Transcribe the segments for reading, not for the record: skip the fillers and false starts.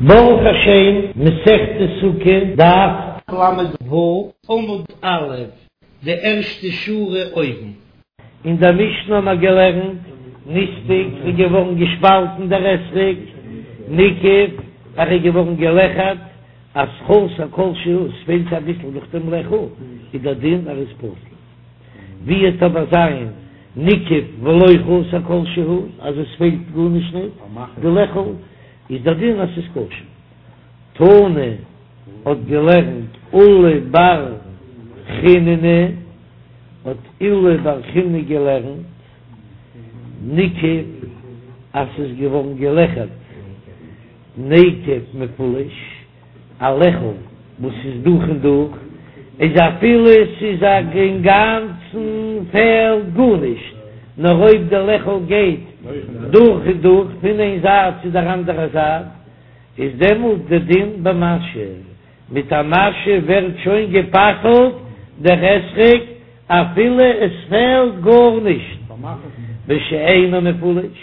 ברוך השם, מסכת סוכה, דף ל"ו, עמוד א', די ערשטע שורה אויבן. אין דער משנה האבן מיר געלערנט, נסדק איז געווארן געשפאלטן דער אתרוג, ניקב, ער איז געווארן געלעכערט, אז חסר כל שהוא, עס פעלט אביסל נאך דעם לעכל, איז דער דין ער איז פסול. ווי וועט אבער זיין ניקב ולא חסר כל שהוא, אז עס פעלט גארנישט ניט די לעכל, איז דער דין אז ס'איז כשר. תנא האט געלערנט עולא בר חיננא, האט עולא בר חיננא געלערנט ניקב אז ס'איז געווארן געלעכערט נקב מפולש, א לעכל וואס איז דורך און דורך, איז אפילו ס'איז אינגאנצן פעלט גארנישט, נאר אויב די לעכל גייט דורך און דורך פון איין זייט צו דער אנדערע זייט, איז דעמאלט די דין במשא, מיט א משא ווערט שוין גע'פסל'ט דער אתרוג אפילו עס פעלט גארנישט, ושאינו מפולש,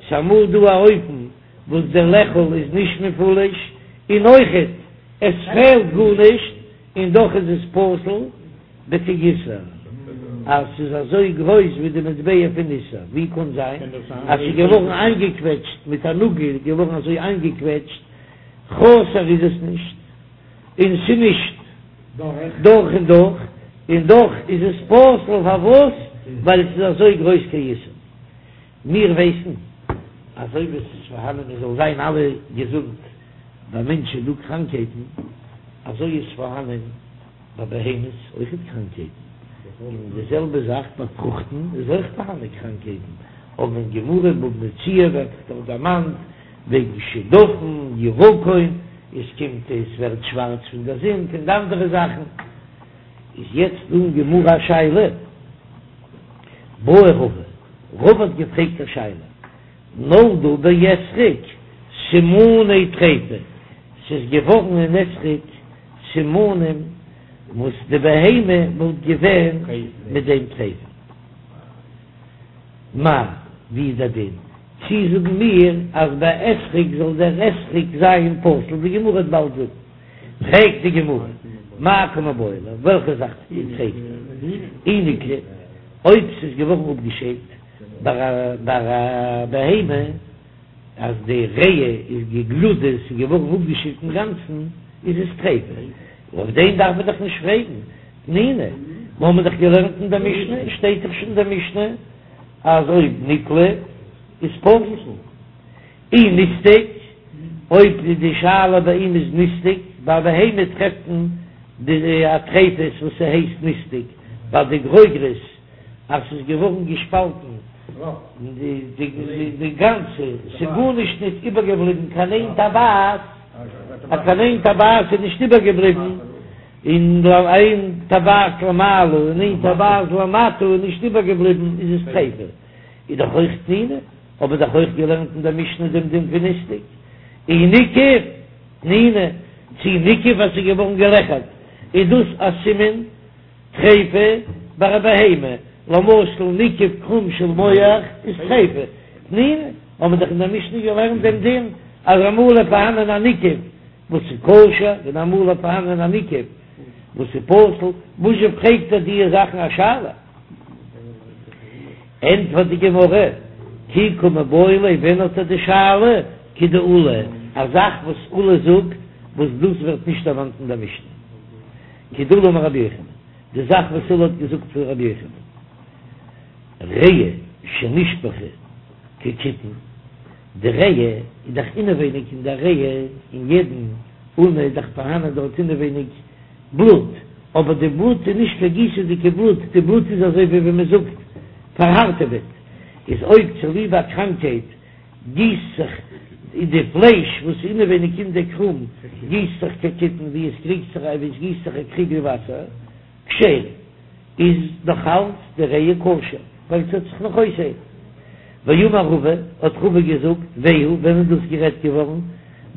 ס'אמאל דא א אופן וואס דער לעכל איז נישט מפולש, און אויכעט עס פעלט גארנישט, און דאך איז עס פסול בכאיסר, אז ס'איז אזוי גרויס ווי די מטבע פון איסר, ווי קען זיין אז ס'איז געווארן איינגעקוועטשט מיט א נאגל איז געווארן אזוי איינגעקוועטשט, חסר איז עס נישט, און ס'איז נישט דורך און דורך, און דאך איז עס פסול, פארוואס? ווייל ס'איז אזוי גרויס כאיסר. מיר ווייסן אזוי ווי עס איז פארהאנען מען זאל זיין אלע געזונט, ביי מענטשן איז דא קראנקייטן, אזוי איז פארהאנען ביי בהמות אויכעט קראנקייטן, און די זעלבע זאך ביי פרוכטן איז אויך פארהאנען קראנקייטן, אבער אין גמרא בבא מציעא ווערט דאך דערמאנט וועגן שדפון, ירקון, עס קומט עס ווערט שווארץ פון דער זון, פון די אנדערע זאכן, איז יעצט דא אין גמרא א שאלה. בעי רבא, רבא האט געפרעגט א שאלה, נולדו באתרוג סימני טריפה, ס'איז געווארן אין אתרוג סימנים וואס די בהמה וואלט געווען מיט דעם טריפה, מהו, ווי איז דער דין? צי זאגן מיר אז ביי אתרוג זאל דער אתרוג זיין פסול, די גמרא וועט באלד זאגן. פרעגט די גמרא, מאי קא מיבעיא ליה, וועלכע זאך פרעגט ער? אי נקלי, אויב ס'איז געווארן אפגעשיידט ביי א בהמה, אז די ריאה איז געגלודה, ס'איז געווארן אפגעשיידט אינגאנצן, איז עס טריפה, אויף דעם דארף מען דאך נישט פרעגן, תנינא, מיר האבן דאך געלערנט אין דער משנה, שטייט דאך שוין אין דער משנה אז אויב נקלי איז פסול. אי נסדק, אויב די שאלה ביי אים איז נסדק, ביי בהמה טרעפט מען די א טריפות וואס ס'הייסט נסדק, ביי די גרוגרות אז ס'איז געווארן געשפאלטן די גאנצע, ס'איז גארנישט נישט איבערגעבליבן קיין איין טבעת, אז קיין איין טבעת איז נישט איבערגעבליבן, און איין טבעת למעלה און איין טבעת למטה איז נישט איבערגעבליבן איז עס טריפה, איז דאך אויך תנינא. האבן מיר דאך אויך געלערנט אין דער משנה דעם דין פון נסדק אי ניקב תנינא, צי ניקב אז ס'איז געווארן געלעכערט, איז דאס א סימן טריפה ביי א בהמה, למשל ניקב קרום של מח איז טריפה, תנינא, האבן מיר דאך אין דער משנה געלערנט דעם דין אז אמאל איז פארהאנען א ניקב וואס איז כשר און אמאל איז פארהאנען א ניקב וואס איז פסול, וואזשע פרעגט ער דיע זאכן א שאלה? ענטפערט די גמרא, כי קא מיבעיא ליה, ווען האט ער די שאלה? כדעולא, א זאך וואס עולא זאגט, וואס דאס ווערט נישט דערמאנט אין דער משנה. כדעולא אמר רבי יוחנן, די זאך וואס עולא האט געזאגט פון רבי יוחנן, ריאה שנשפכה כקיתון, די ריאה איז דאך אינעווייניג אין דער ריאה, אין יעדן אונה איז דאך פארהאנען דארט אינעווייניג בלוט, אבער די בלוט איז נישט קיין גיסעדיגע בלוט, די בלוט איז אזוי ווי ווען מען זאגט פארהארטעוועט, איז אויב צוליב א קראנקהייט גיסט זיך די פלייש וואס איז אינעווייניג אין די קרום גיסט זיך כקיתון ווי עס קריגט זיך ווי עס גיסט זיך א קריגל וואסער, כשרה, איז נאך אלץ די ריאה כשר, ווייל ס'וועט זיך נאך אויסהיילן. ואמר רבא, האט רבא געזאגט, והוא, ווען איז דאס גערעדט געווארן?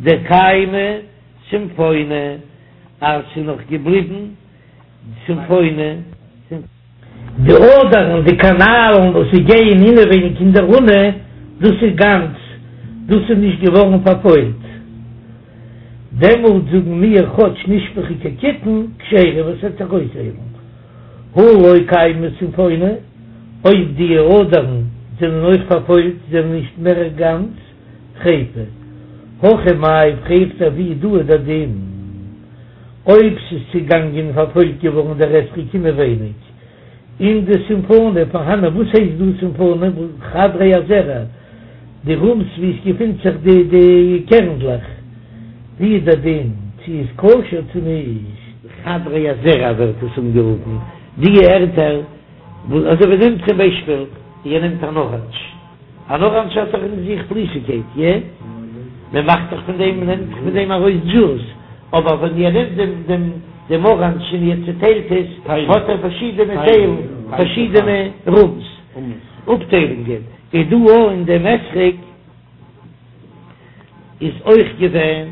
דקיימא סימפונא. אז ס'איז נאך געבליבן סימפונא. די אדערן, די קאנאלן וואס זיי גייען אינעווייניג אין דער אונה, דאס איז גאנץ, דאס איז נישט געווארן פארפוילט. דעמאלט זאגן מיר כאטש נשפכו כקיתון כשרה וואס וועט זיך אויסהיילן. הא לא קיימא סימפונא, אויב די אדערן זענען אויך פארפוילט זענען נישט מער גאנץ טריפה. הכא מאי פרעגט ער ווי דא איז דער דין אויב ס'איז צוגאנגען פארפוילט געווארן דער אתרוג אינעווייניג אין די סימפונא פארהאנען וואס הייסט דא סימפונא חדרי הזרע די רומס ווי עס געפינט זיך די די קערנדלעך ווי איז דער דין צו איז כשר צו נישט. חדרי הזרע ווערט עס אנגערופן די ערטער וואס אזוי ווי נעמט צום ביישפיל איר נעמט אן אראנדזש אן אראנדזש האט דאך אין זיך פליסיגקייט, איא? מען מאכט דאך פון דעם, מען נעמט דאך פון דעם ארויס דזשוס, אבער ווען איר נעמט דעם דעם דעם אראנדזש און איר צעטיילט עס, האט ער פארשידענע טיילן, פארשידענע רומס, אפטיילונגען, איז דא אויך אין דעם אתרוג איז אויך געווען,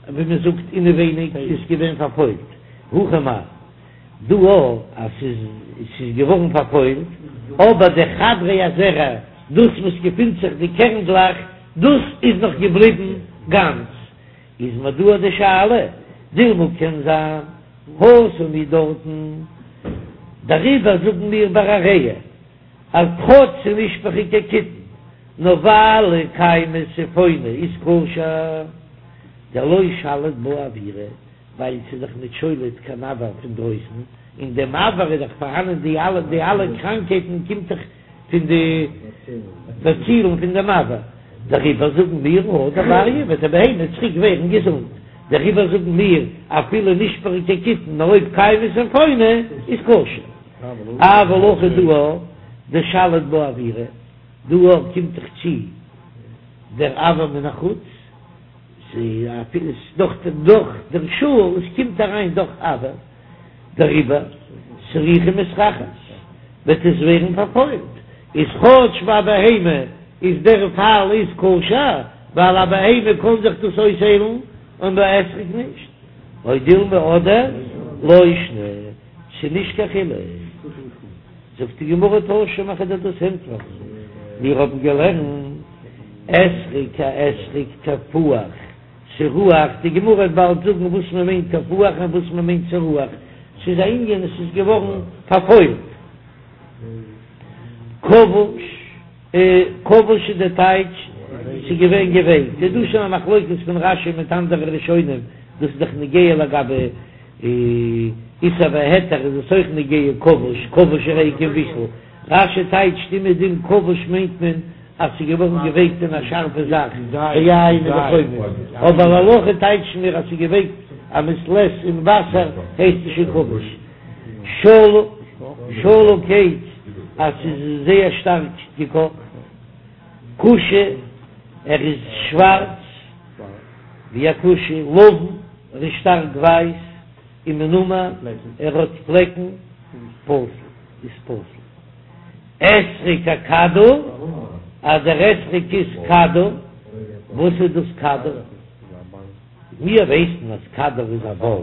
ווי מען זאגט אינעווייניג איז געווען פארפוילט, הכא מאי. דא אויך אז ס'איז ס'איז געווארן פארפוילט, אבער די חדרי הזרע, דאס וואס געפינט זיך די קערנדלעך, דאס איז נאך געבליבן גאנץ, איז מיר דא די שאלה, דילמא קען זיין התם הוא דארטן, דעריבער זאגן מיר ביי א הריעה אז כאטש ס'איז נשפכו כקיתון, נאר ווייל קיימא סימפונא איז כשר, דלא שליט בה אוירא. ווייל ס'איז דאך ניט שולט קיין אויר פון דרויסן, אין דעם אויר איז דאך פארהאנען די אלע די אלע קראנקייטן קומט דאך פון די באצילן פון דעם אויר, דעריבער זאגן מיר הדר בריא וועט די בהמה צוריק ווערן געזונט, דעריבער זאגן מיר אפילו נשפכו כקיתון נאר אויב קיימא סימפונא איז כשר, אבל הכא דא דשליט בה אוירא, דא קומט דאך צו דער אויר מן החוץ. ס'איז דאך דורך דער שאל, עס קומט אריין דאך אויר, דעריבער סרוחה מסרחת וועט עס ווערן פארפוילט, איז כאטש ביי בהמה איז דער פאל איז כשר, ווייל א בהמה קען זיך דאס אויסהיילן און ביי אתרוג נישט, או דילמא אדער לא שנא, ס'איז נישט קיין חילוק. זאגט די גמרא תא שמע כ'וועל דיר דאס ענטפערן, מיר האבן געלערנט אתרוג א אתרוג תפוח סרוח, די גמרא וועט באלד זאגן וואס מען מיינט תפוח און וואס מען מיינט סרוח, ס'איז א ענין עס איז געווארן פארפוילט. כבוש, כבוש איז די טייטש ס'איז געווען געווייקט, איז דא שוין א מחלוקת פון רש"י מיט אנדערע ראשונים, דאס איז דאך נוגע לגבי איסור והיתר איז עס אויך נוגע כבוש, כבוש הרי כמבושל, רש"י טייטשט אומעדום כבוש מיינט מען אז ס'איז געווארן געווייקט אין א שארפע זאך, ביין וכו', אבער להלכה טייטשן מיר אז ס'איז געווייקט א מעת לעת אין וואסער הייסט עס שוין כבוש. שלוק, שלוק הייסט אז ס'איז זייער שטארק געקאכט. כושי, ער איז שווארץ ווי א כושי, לבן. ער איז שטארק ווייס ומנומר, ער האט פלעקן, פסול איז פסול. אתרוג הכדור, אז דער אתרוג איז כדור, וואס איז דאס כדור? מיר ווייסן אז כדור איז א באל,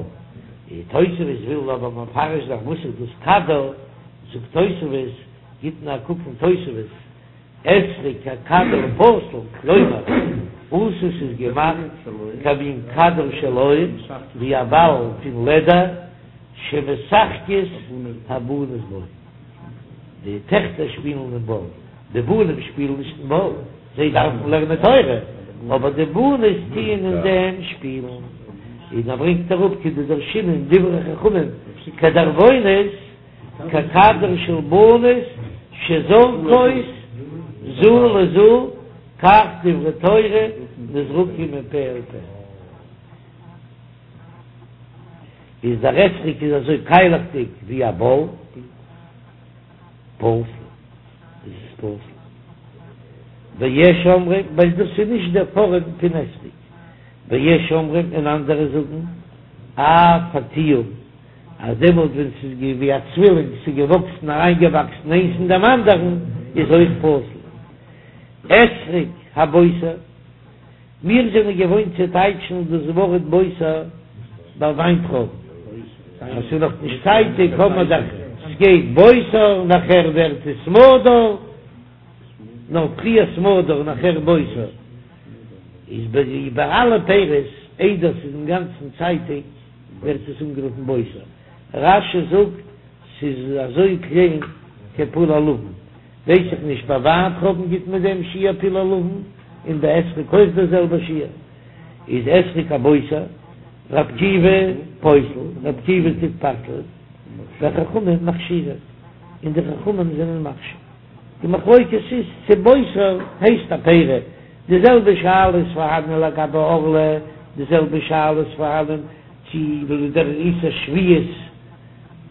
די תוספות וויל אבער מפרש זיין וואס איז דאס כדור, זאגט תוספות, גיט נאר א קוק אין תוספות, אתרוג הכדור פסול, כלומר, עשוי ס'איז געמאכט כמין כדור של עור, ווי א באל פון לעדער, שמשחקות הבנות בו. די טעכטער שפילן אין באל, די בנים שפילן נישט אין באל, זיי דארפן לערנען תורה, אבער די בנות טוען אין דעם שפילן. און ער ברענגט אראפ כדדרשינן דברי חכמים כדרבונות, ככדור של בנות שזורקות זו לזו כך דברי תורה נזרקים מפה אל פה. איז דער אתרוג איז אזוי קיילעכדיג ווי א באל, פסול, איז עס פסול. ויש אומרים, ווייל דאס איז נישט דער פארעם פון אתרוג. ויש אומרים און אנדערע זאגן, אף התיאום. אז דעמאלט ווען ס'איז געווען ווי א צווילינג, ס'איז געוואקסן אריינגעוואקסן איינס אין דעם אנדערן, איז אויך פסול. אתרוג הבוסר, מיר זענען געוואוינט צו טייטשן דאס ווארט בוסר ביי וויינטרויבן, אז ס'איז נאך נישט צייטיג האט מען דאך, ס'גייט בוסר, נאכער ווערט עס סמדר, נאר פריער סמדר נאכער בוסר, איז ביי אלע פירות. איידער ס'איז אינגאנצן צייטיג ווערט עס אנגערופן בוסר. רש"י זאגט ס'איז אזוי קליין כפול הלבן, ווייס איך נישט, ביי וויינטרויבן גיט מען דעם שיעור פול הלבן, און ביי אתרוג אויך דער זעלבער שיעור, איז אתרוג א בוסר, ר' עקיבא פוסל, ר' עקיבא טוט פסל'ען, וחכמים מכשירים, און די חכמים זענען מכשיר. די מחלוקת איז צו בוסר הייסט א פרי, די זעלבע שאלה איז פארהאנען לגבי ערלה, די זעלבע שאלה איז פארהאנען צו דער איסור שביעית,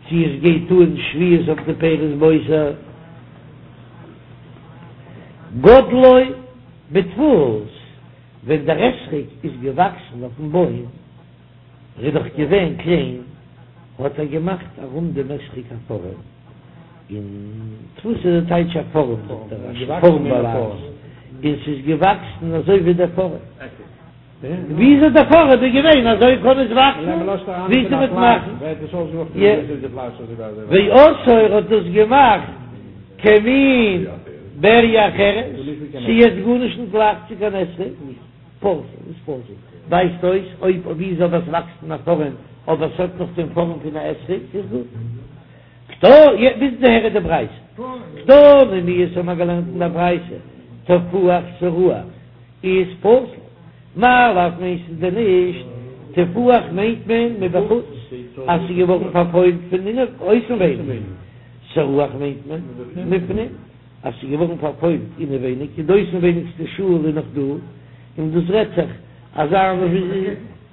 צו עס גייט אן שביעית אויף די פירות בוסר. גדלו בדפוס, ווען דער אתרוג איז געוואקסן אויפן בוים, ער איז דאך געווען קליין, האט ער געמאכט ארום דעם אתרוג א פארעם, און דפוס איז די טייטש א פארעם, זאגט דער רש"י, פארעם בלע"ז, און ס'איז געוואקסן אזוי ווי דער פארעם. וויאזוי דער פארעם איז געווען אזוי קען עס וואקסן, ווי ס'וועט מאכן. ועשאו ער האט דאס געמאכט כמין בריה אחרת, ס'איז יעצט גארנישט נישט גלייך צו קיין אתרוג, פסול איז פסול, ווייזט אויס אויב וויאזוי אבער עס וואקסט אין א פארעם אבער עס האט נאך דעם פארעם פון א אתרוג איז גוט. קתני, ביז דאהער איז די ברייתא. קתני מיהת האבן מיר געלערנט אין דער ברייתא, תפוח סרוח איז פסול. מאי לאו מיינסטו דען נישט תפוח מיינט מען מבחוץ אז ס'איז געווארן פארפוילט פון אויסנווייניג, סרוח מיינט מען מבפנים אז ס'איז געווארן פארפוילט אינעווייניג און די אויסנווייניגסטע שאל איז נאך דא, און דאס רעדט זיך אזא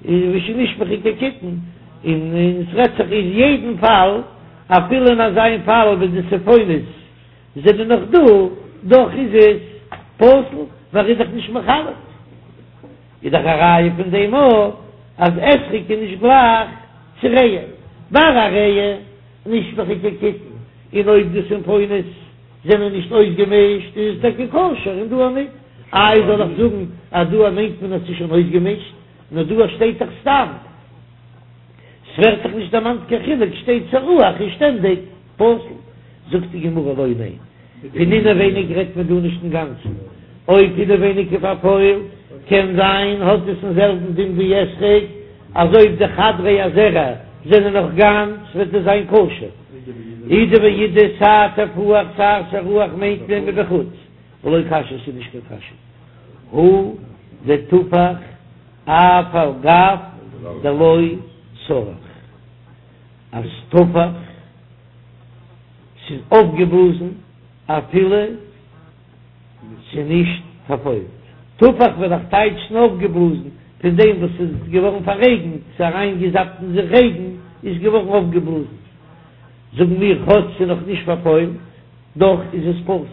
ווי שנשפכו כקיתון, און ס'רעדט זיך אין יעדן פאל אפילו אין אזא פאל ווען די סיפונות זענען נאך דא, דאך איז עס פסול, ווייל ער איז דאך נישט מחלק. איז דאך א ראיה פון דעם אויך אז אתרוג איז נישט גלייך צו ריאה, ביי א ריאה נשפכו כקיתון, און אויב די סימפונות זענען נישט אויסגעמישט איז עס טאקע כשר און דא ניט. איי זאל איך זאגן אז דא מיינט מען אז ס'איז שוין אויסגעמישט, נאר דא שטייט דאך סתם, ס'ווערט דאך נישט דערמאנט קיין חילוק, שטייט סרוח איז שטענדיג פסול. זאגט די גמרא לא ניין, פון אינעווייניג רעדט מען דא נישט אינגאנצן, אויב אינעווייניג איז פארפוילט קען זיין האט עס דעם זעלבן דין ווי אתרוג, אז אויב די חדרי הזרע זענען נאך גאנץ וועט עס זיין כשר. אידי ואידי סיי תפוח סיי סרוח מיינט מען מבחוץ, ולא קשיא ס'איז נישט קיין קשיא הא דתפח אף על גב דלא סרח. אז תפח ס'איז אויפגעבלאזן אפילו ס'איז נישט פארפוילט. תפח וועל איך טייטשן אויפגעבלאזן, פון דעם וואס ס'איז געווארן פאררעגנט, ס'איז אריינגעזאפט אין זיך רעגן, איז געווארן אויפגעבלאזן. זאגן מיר כאטש ס'איז נאך נישט פארפוילט, דאך איז עס פסול.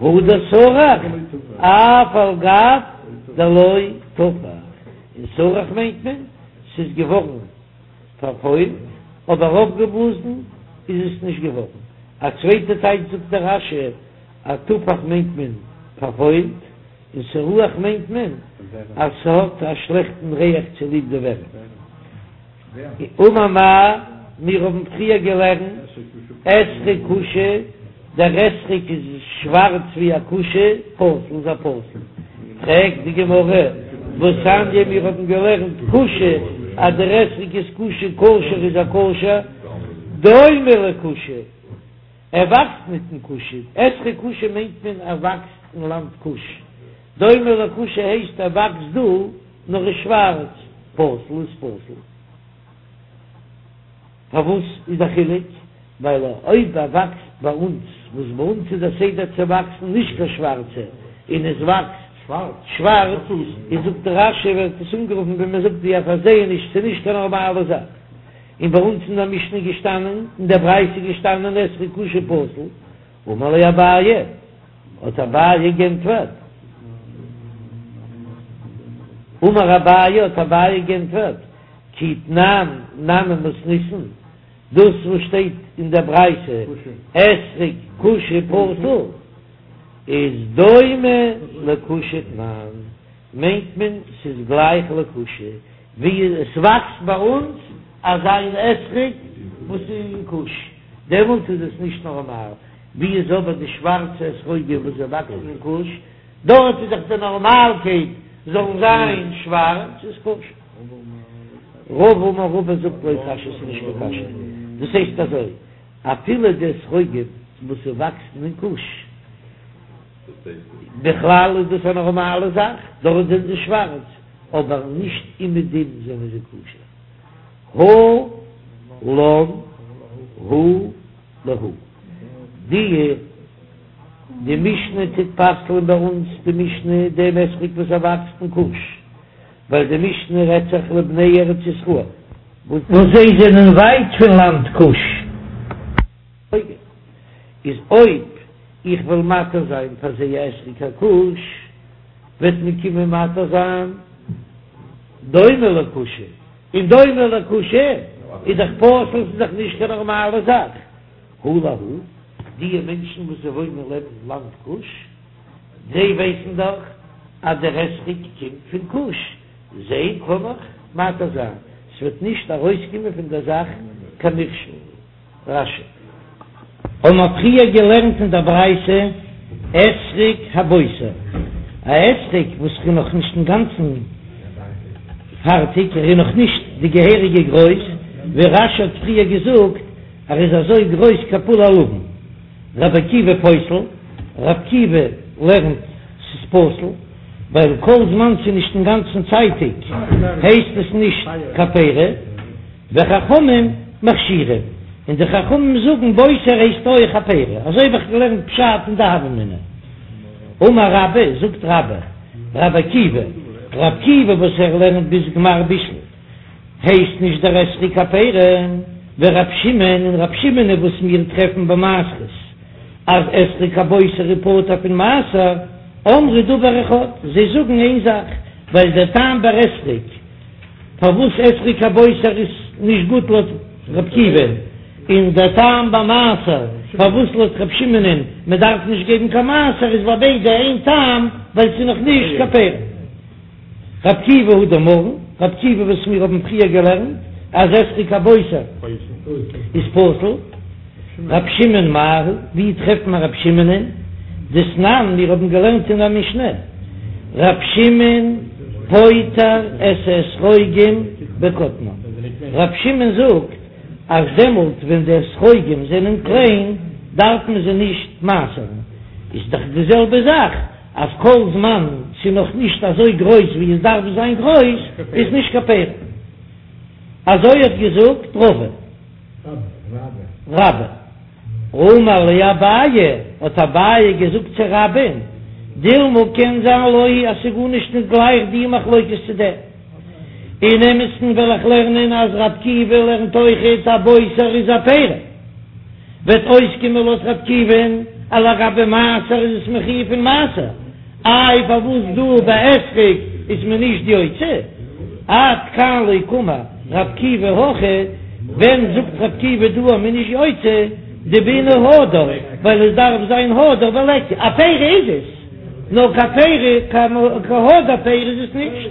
הא דסרח אף על גב דלא תפח, און סרח מיינט מען ס'איז געווארן פארפוילט, אבער אויפגעבלאזן איז עס נישט געווארן. א צווייטע טייטש זאגט דער רש"י אז תפח מיינט מען פארפוילט, און סרוח מיינט מען אז ס'האט א שלעכטן ריח צוליב די ווערים. אמר מר, מיר האבן פריער געלערנט אתרוג כושי, דער אתרוג איז שווארץ ווי א כושי, פסול איז ער פסול. פרעגט די גמרא, והתניא מיר האבן געלערנט כושי, אז דער אתרוג איז כושי כשר איז ער כשר, דומה לכושי, ער וואקסט ניט אין כוש, אתרוג כושי מיינט מען ער וואקסט אין לאנד כוש, דומה לכושי הייסט ער וואקסט דא, נאר איז שווארץ, פסול איז פסול. פארוואס איז א חילוק? ווייל אויב ער וואקסט ביי אונז, וואס ביי אונז איז דער סדר צו וואקסן נישט קיין שווארצע, און עס וואקסט שווארץ, איז זאגט רש"י ווערט עס אנגערופן ווי מען זאגט ווי א פארזעעניש, ס'איז נישט קיין נארמאלע זאך. און ביי אונז אין דער משנה איז געשטאנען, אין דער ברייתא איז געשטאנען אתרוג כושי פסול, אמר ליה אביי, האט אביי גענטפערט, אמר אביי, האט אביי גענטפערט, כי תנן נמי מתניתין, דאס וואס שטייט אין דער ברייתא אתרוג כושי פסול, איז דומה לכושי תנן, מיינט מען ס'איז גלייך לכושי, ווי עס וואקסט ביי אונז אזא מין אתרוג וואס איז אין כוש, דעמאלט איז עס נישט נארמאל. ווי איז אבער די שווארצע אתרוגים וואס זיי וואקסן אין כוש? דארט איז דאך די נארמאלקייט. זאלן זיין שווארץ איז כשר. רבא אמר רבא זאגט לא קשיא ס'איז נישט קיין קשיא, דאס הייסט אזוי אפילו די אתרוגים וואס וואקסן אין כוש בכלל איז דאס א נארמאלע זאך, דארט זענען זיי שווארץ אבער נישט אומעדום זענען זיי כשר. הא לן הא להו די די משנה טוט פסל'ען ביי אונז די משנה דעם אתרוג וואס ער וואקסט אין כוש, ווייל די משנה רעדט זיך לבני ארץ ישראל. וואס זיי זענען ווייט פון לאנד כוש. איז אויב איך וועל מתיר זיין פאר זיי א אתרוג הכוש, וועט מען קומען מתיר זיין דומה לכושי, און דומה לכושי איז דאך פסול, ס'איז דאך נישט קיין נארמאלע זאך. הא להו, די מענטשן וואס זיי וואוינען לעבן לאנד כוש, זיי ווייסן דאך אז דער אתרוג קומט פון כוש, זיי קען איך מתיר זיין, ס'וועט נישט ארויסקומען פון דער זאך קיין מכשול. רש"י. האבן מיר פריער געלערנט אין דער ברייתא אתרוג הבוסר, א אתרוג וואס איז נאך נישט אינגאנצן פארטיג, ער איז נאך נישט די געהעריגע גרויס, ווי רש"י האט פריער געזאגט, ער איז אזוי גרויס כפול הלבן. רבי עקיבא פוסל, רבי עקיבא לערנט ס'איז פסול, ווייל כל זמן ס'איז נישט אינגאנצן צייטיג הייסט עס נישט קיין פרי, וחכמים מכשירים, און די חכמים זאגן בוסר הייסט אויך א פרי, אזוי האב איך געלערנט פשט אין די הוה אמינא. אמר רבה, זאגט רבה, רבי עקיבא, רבי עקיבא וואס ער לערנט ביז גמר בישול, הייסט נישט דער אתרוג קיין פרי, ורב שמעון און רב שמעון וואס מיר טרעפן ביי מעשרות אז אתרוג הבוסר איז פטור פון מעשר, אמרו דבר אחד, זיי זאגן איין זאך, ווייל דער טעם ביי אתרוג פארוואס אתרוג הבוסר איז נישט גוט לויט רב עקיבא, און דער טעם ביי מעשר פארוואס לויט רב שמעונ'ען מען דארף נישט געבן קיין מעשר איז ביי ביידע איין טעם ווייל ס'איז נאך נישט קיין פרי. רב עקיבא הא דאמרן, רב עקיבא וואס מיר האבן פריער געלערנט אז אתרוג הבוסר איז פסול, רב שמעון מאי היא, ווי טרעפט מען רב שמעונ'ען? דתנן, מיר האבן געלערנט אין א משנה, רב שמעון פוטר את האתרוגים בקטנם, רב שמעון זאגט אז דעמאלט ווען די אתרוגים זענען קליין דארף מען זיי נישט מעשר'ן, איז דאך די זעלבע זאך אז כל זמן ס'איז נאך נישט אזוי גרויס ווי עס דארף זיין גרויס איז נישט קיין פרי. אזוי האט געזאגט רבא. רבה. אמר ליה אביי, האט אביי געזאגט צו רבה'ן, דילמא קען זיין לא היא אז ס'איז גארנישט נישט גלייך די מחלוקת צו דעם. אין אמת'ן וועל איך לערנען אז רב עקיבא לערנט אויכעט אז בוסר איז א פרי. וועט אויסקומען לויט רב עקיבא'ן אז לגבי מעשר איז עס מחויב פון מעשר, איי פארוואס דא ביי אתרוג איז מען נישט יוצא? עד כאן לא קאמר רב עקיבא הכא, ווען זאגט רב עקיבא דא אז מען איז נישט יוצא? דבעינן הדר, ווייל עס דארף זיין הדר וליכא, א פרי איז עס, נאר קיין פרי קיין הדר פרי איז עס נישט,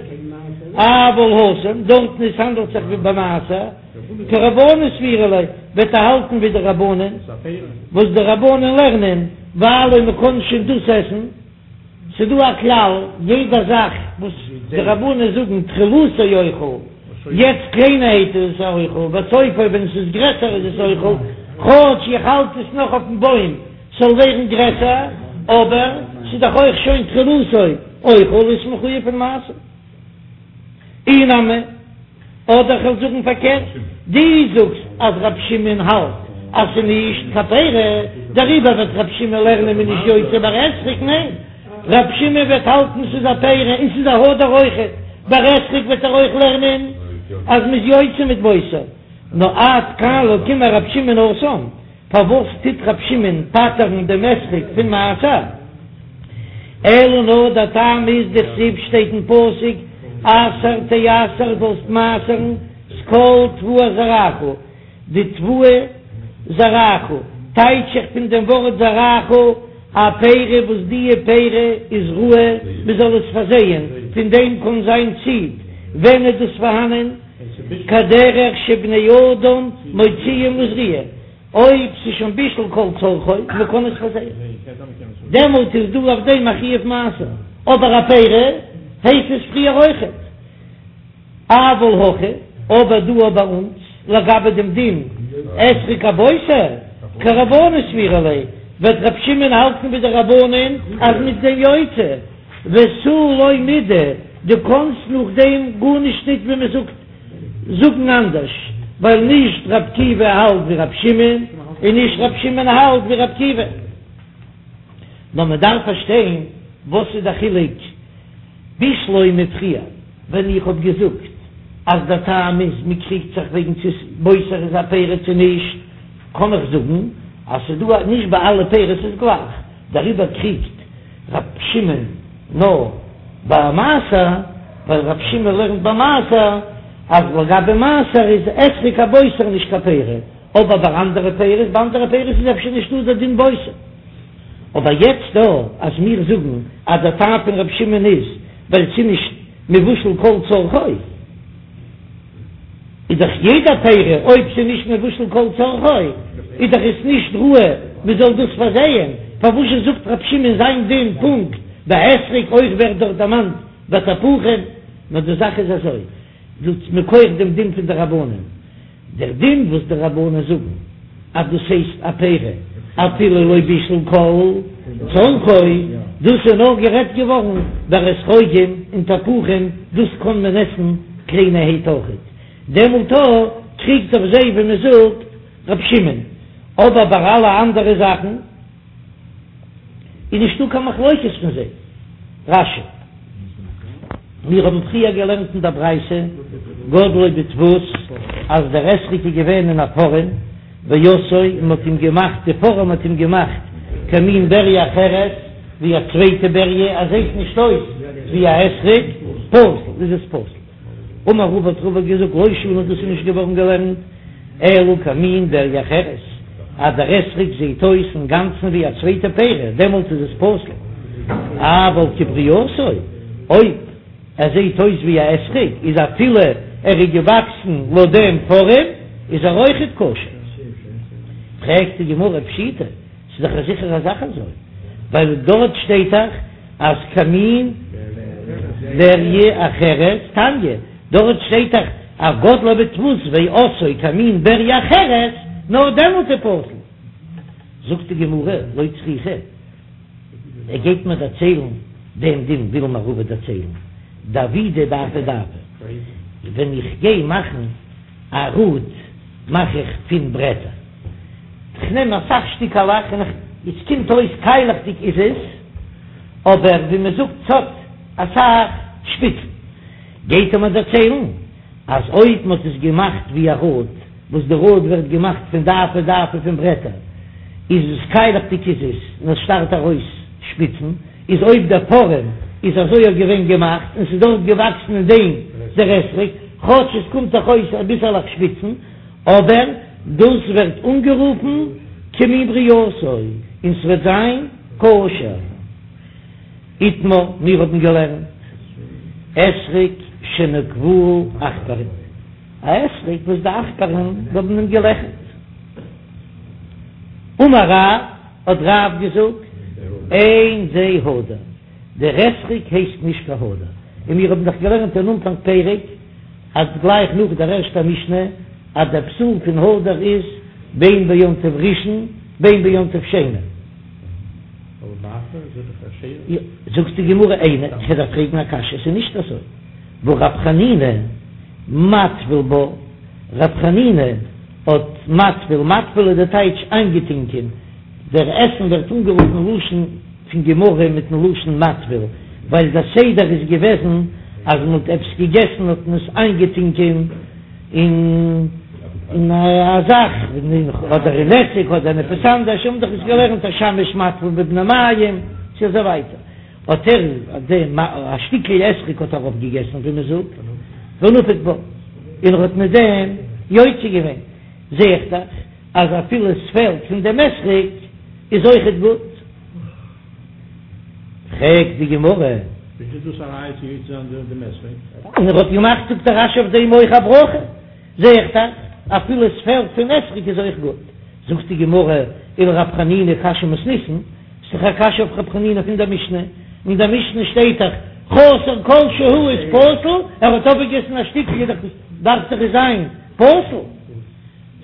אבל התם, דארטן עס האנדלט זיך ווי ביי מעשר. כרבנן סבירא ליה, וועט ער האלטן ווי די רבנן, וואס די רבנן לערנען, ווייל אויב מ'קען שוין דאס עסן, ס'דא א כלל, יעדע זאך וואס די רבנן זאגן תחילתו אוכל, יעצט קליינערהייט איז עס אוכל, וסופו ווען עס איז גרעסער איז עס אוכל, כאטש איך האלט עס נאך אויפן בוים ס'זאל ווערן גרעסער, אבער ס'איז דאך אויך שוין תחילתו אוכל איז מחויב פון מעשר. אי נמי, אדער כ'וועל זאגן פארקערט, דו זאגסט אז ר' שמעון האלט אז ס'איז נישט קיין פרי, דעריבער וועט ר' שמעון לערנען מ'איז נישט יוצא ביי אתרוג, ניין, ר' שמעון וועט האלטן ס'איז א פרי און ס'איז א הדר אויכעט, ביי אתרוג וועט ער אויך לערנען אז מ'איז יוצא מיט בוסר, נאר עד כאן לא קאמר ר' שמעון התם. פארוואס טוט ר' שמעון פטר'ן דעם אתרוג פון מעשר? אלא נאר דער טעם איז דכתיב שטייט אין פסוק עשר תעשר זאלסט מעשר'ן את כל תבואת זרעך, די תבואה זרעך טייטש איך פון דעם ווארט זרעך א פרי וואס דיע פרי איז ראוי מען זאל עס פארזייען, פון דעם קען זיין ציד, ווען איז דאס פארהאנען? כדרך שבני אדם מוציאים לזריעה, אויב ס'איז שוין בישל כל צרכו, מ'קען עס פארזייען, דעמאלט איז דא אויף דעם א חיוב מעשר, אבער א פרי. הייסט עס פריער אויכעט. אבל הכא, אבער דא ביי אונז, לגבי דעם דין אתרוג הבוסר, כרבנן סבירא ליה, וועט ר' שמעון האלטן ווי די רבנן אז מ'איז דעם יוצא, ותו לא מידי, דו קאנסט נאכדעם גארנישט ניט ווי מען זאגט זאגן אנדערש, ווייל נישט ר' עקיבא האלט ווי ר' שמעון, און נישט ר' שמעון האלט ווי ר' עקיבא. נאר מען דארף פארשטיין וואס איז די חילוק בשלמא פריער ווען איך האב געזאגט אז דער טעם איז מען קריגט זיך וועגן צו בוסר איז א פרי צו נישט, קען איך זאגן אז ס'איז דא נישט ביי אלע פירות איז גלייך, דעריבער קריגט ר' שמעון נאר ביי מעשר, ווייל ר' שמעון לערנט ביי מעשר אז לגבי מעשר איז אתרוג הבוסר נישט קיין פרי, אבער ביי אנדערע פירות, ביי אנדערע פירות איז אפשר נישטא דער דין בוסר. אבער יעצט דא אז מיר זאגן אז דער טעם פון ר' שמעון איז ווייל ס'איז נישט מבושל כל צרכו, איז דאך יעדע פרי אויב ס'איז נישט מבושל כל צרכו איז דאך עס נישט ראוי מ'זאל דאס פארזייען, פארוואזשע זאגט ר' שמעון זיין דין פונקט ביי אתרוג אויך ווערט דארט דערמאנט ביי תפוחים, נאר די זאך איז אזוי, דאס מכח דעם דין פון די רבנן. דער דין וואס די רבנן זאגן אז דאס הייסט א פרי אפילו לא בישל כל צרכו, דאס איז נאר גערעדט געווארן ביי אתרוגים און תפוחים, דאס קען מען עסן קליינערהייט אויכעט, דעמאלט קריגט אויף זיי ווי מען זאגט ר' שמעון, אבער ביי אלע אנדערע זאכן. איז נישטא קיין מחלוקת פון זיי. רש"י. מיר האבן פריער געלערנט אין דער ברייתא, גדלו בדפוס, אז דער אתרוג איז געווען אין א פארעם, ועשאו, און מ'האט אים געמאכט, די פארעם האט אים געמאכט כמין בריה אחרת, ווי א צווייטע בריה, עס זעט נישט אויס ווי א אתרוג, פסול, איז עס פסול. אמר רבא האט רבא געזאגט לא שנו דאס איז נישט געווארן געלערנט אלא כמין בריה אחרת אז דער אתרוג זעהט אויס אינגאנצן ווי א צווייטע פרי דעמאלט איז עס פסול אבל כברייתו אויב ער זעהט אויס ווי א אתרוג איז אפילו ער איז געוואקסן לויט דעם פארעם איז ער אויכעט כשר. פרעגט די גמרא פשיטא ס'איז דאך א זיכערע זאך אזוי ווייל דארט שטייט דאך אז כמין בריה אחרת תניא, דארט שטייט דאך אז גדלו בדפוס ועשאו כמין בריה אחרת, נאר דעמאלט איז פסול. זאגט די גמרא, לא צריכא, ער גייט מיר דערציילן דעם דין וויל מיר רבא דערציילן, דעבידי דעפי דעפי, ווען איך גיי מאכן א ראד מאך איך פון ברעטער. כ'נעם אסאך שטיקעלעך און עס קומט אויס קיילעכדיג איז עס, אבער ווי מען זאגט ס'האט אסאך שפיצן. גייט ער מיר דערציילן אז אויב מ'האט עס געמאכט ווי א ראד, וואס די ראד ווערט געמאכט פון דעפי דעפי פון ברעטער, איז עס קיילעכדיג איז עס און עס שטארט ארויס שפיצן, איז אויב דער פארעם איז אזוי אויך געווען געמאכט און ס'איז דארט געוואקסן אין דעם דער אתרוג, כאטש עס קומט דאך אויס אביסעלעך שפיצן, אבער דאס ווערט אנגערופן כמין ברייתו און ס'וועט זיין כשר. איתמר, מיר האבן געלערנט אתרוג שנקבוהו עכברים, א אתרוג וואס די עכברים האבן אים געלעכערט. אמר רב, האט רב געזאגט, אין זה הדר, דער אתרוג הייסט נישט קיין הדר, און מיר האבן דאך געלערנט אין אנפאנג פרק, אז גלייך נאך דער ערשטער משנה אז דער פסול פון הדר איז בין ביום טוב ראשון בין ביום טוב שני. זאגט די גמרא איני, איך וועל דיר פרעגן א קשיא, עס איז נישט אזוי, והא רב חנינא מטביל בה, רב חנינא האט מטביל, מטביל איז די טייטש איינגעטינקען, דער עסן ווערט אנגערופן לשון פון גמרא מיטן לשון מטביל, ווייל דער סדר איז געוועזן אז מען האט עפעס געגעסן האט מען עס איינגעטונקען אין אין א זאך, אדער אין עסיג אדער אין עפעס אנדערש, האבן דאך עס געלערנט השמש מטביל בבני מעיים צו אזוי ווייטער, האט ער דעם א שטיקל אתרוג האט ער אויפגעגעסן ווי מען זאגט, ונפק בה, און ער האט מיט דעם יוצא געווען, זע איך דאך אז אפילו עס פעלט פון דעם אתרוג איז אויכעט גוט. פרעגט די גמרא. ווי איז דאס א ראיה צו יוצא זיין דעם אתרוג? און ער האט געמאכט זאגט דער רש"י אויף דעם אויך א ברכה, זע איך דאך אפילו עס פעלט פון אתרוג איז אויך גוט. זאגט די גמרא, ולרב חנינא קשיא מתניתין, ס'איז דאך א קשיא אויף רב חנינא פון דער משנה, אין דער משנה שטייט דאך. חסר כל שהוא איז פסול, ער האט אפגעגעסן א שטיקל איז דאך דארף דאך עס זיין פסול.